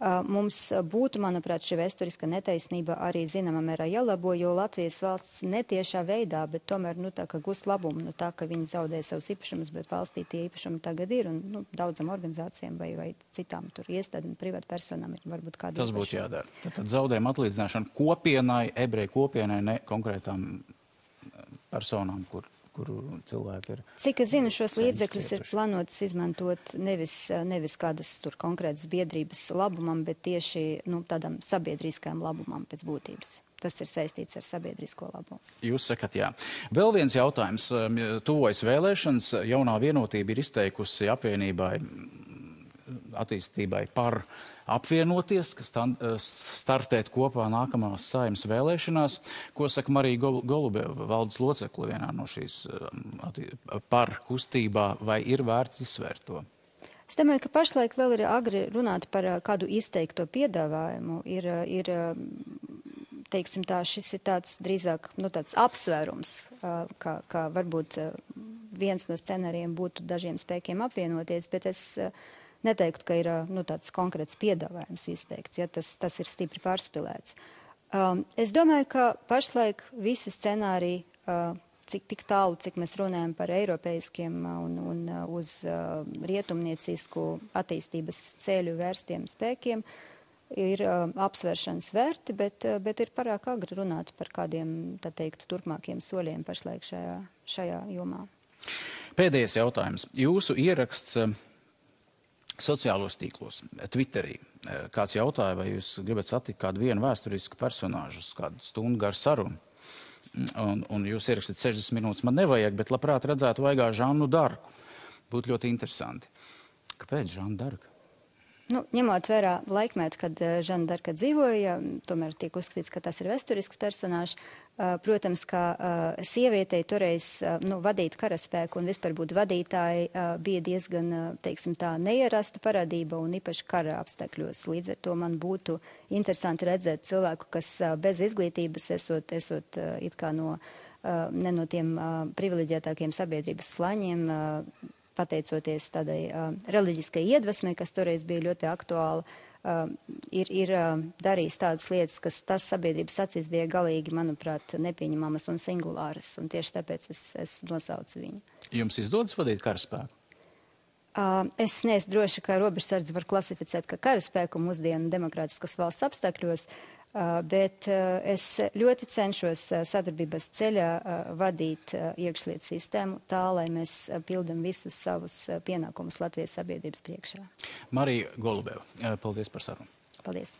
Mums būtu, manuprāt, šī vēsturiska netaisnība arī zināmā mērā jālabo, jo Latvijas valsts netiešā veidā, bet tomēr, tā kā gūs labumu, tā, ka viņi zaudē savus īpašumus, bet valstī tie īpašumi tagad ir, un daudzam organizācijām vai citām tur iestādēm, privātu personām ir varbūt kādi Tas būtu jādara. Tad zaudējuma atlīdzināšana kopienai, ebreju kopienai, ne konkrētām personām, kuru cilvēki ir. Cik es zinu, šos līdzekļus ir plānots izmantot nevis kādas tur konkrētas biedrības labumam, bet tieši tādam sabiedriskajam labumam pēc būtības. Tas ir saistīts ar sabiedrisko labumu. Jūs sakat, jā. Vēl viens jautājums. Tuvojas vēlēšanas. Jaunā vienotība ir izteikusi apvienībai attīstībai par apvienoties, kas startēt kopā nākamās Saeimas vēlēšanās. Ko saka Marija Golubeva, valdes locekle vienā no šīs par kustībā, vai ir vērts izsvērt to? Es domāju, ka pašlaik vēl ir agri runāt par kādu izteikto piedāvājumu. Teiksim tā, šis ir tāds drīzāk tāds apsvērums, kā varbūt viens no scenārijiem būtu dažiem spēkiem apvienoties, bet es neteiktu, ka ir tāds konkrēts piedāvājums izteikts, ja tas ir stipri pārspilēts. Es domāju, ka pašlaik visi scenāriji, tik tālu, cik mēs runājam par eiropeiskiem un uz rietumniecisku attīstības ceļu vērstiem spēkiem, ir apsvēršanas vērti, bet ir pārāk agri runāt par kādiem, tā teikt, turpmākiem soļiem pašlaik šajā jomā. Pēdējais jautājums. Jūsu ieraksts sociālos tīklos, Twitterī. Kāds jautāja, vai jūs gribat satikt kādu vienu vēsturisku personāžu, kādu stundu garu sarunu. Un jūs ierakstāt 60 minūtes, man nevajag, bet labprāt redzētu vaigā Žannu Darku. Būtu ļoti interesanti. Kāpēc Žanna Darka? Ņemot vērā laikmetu, kad Žanna Darka dzīvoja, tomēr tiek uzskatīts, ka tas ir vēsturisks personāžs. Protams, ka sievietei toreiz vadīt karaspēku un vispār būt vadītāji bija diezgan, teiksim tā, neierasta parādība un īpaši kara apstākļos. Līdz ar to man būtu interesanti redzēt cilvēku, kas bez izglītības esot it kā ne no tiem privileģētākiem sabiedrības slaņiem, pateicoties tādai reliģiskai iedvesmei, kas toreiz bija ļoti aktuāla, ir darījis tādas lietas, kas tas sabiedrības acīs bija galīgi, manuprāt, nepieņemamas un singulāras, un tieši tāpēc es nosaucu viņu. Jums izdodas vadīt karaspēku? Es neesmu droši, ka robežsardzi var klasificēt kā karaspēku mūsdienu demokrātiskas valsts apstākļos, bet es ļoti cenšos sadarbības ceļā vadīt iekšlietu sistēmu tā, lai mēs pildam visus savus pienākumus Latvijas sabiedrības priekšā. Marija Golubeva, paldies par sarunu. Paldies.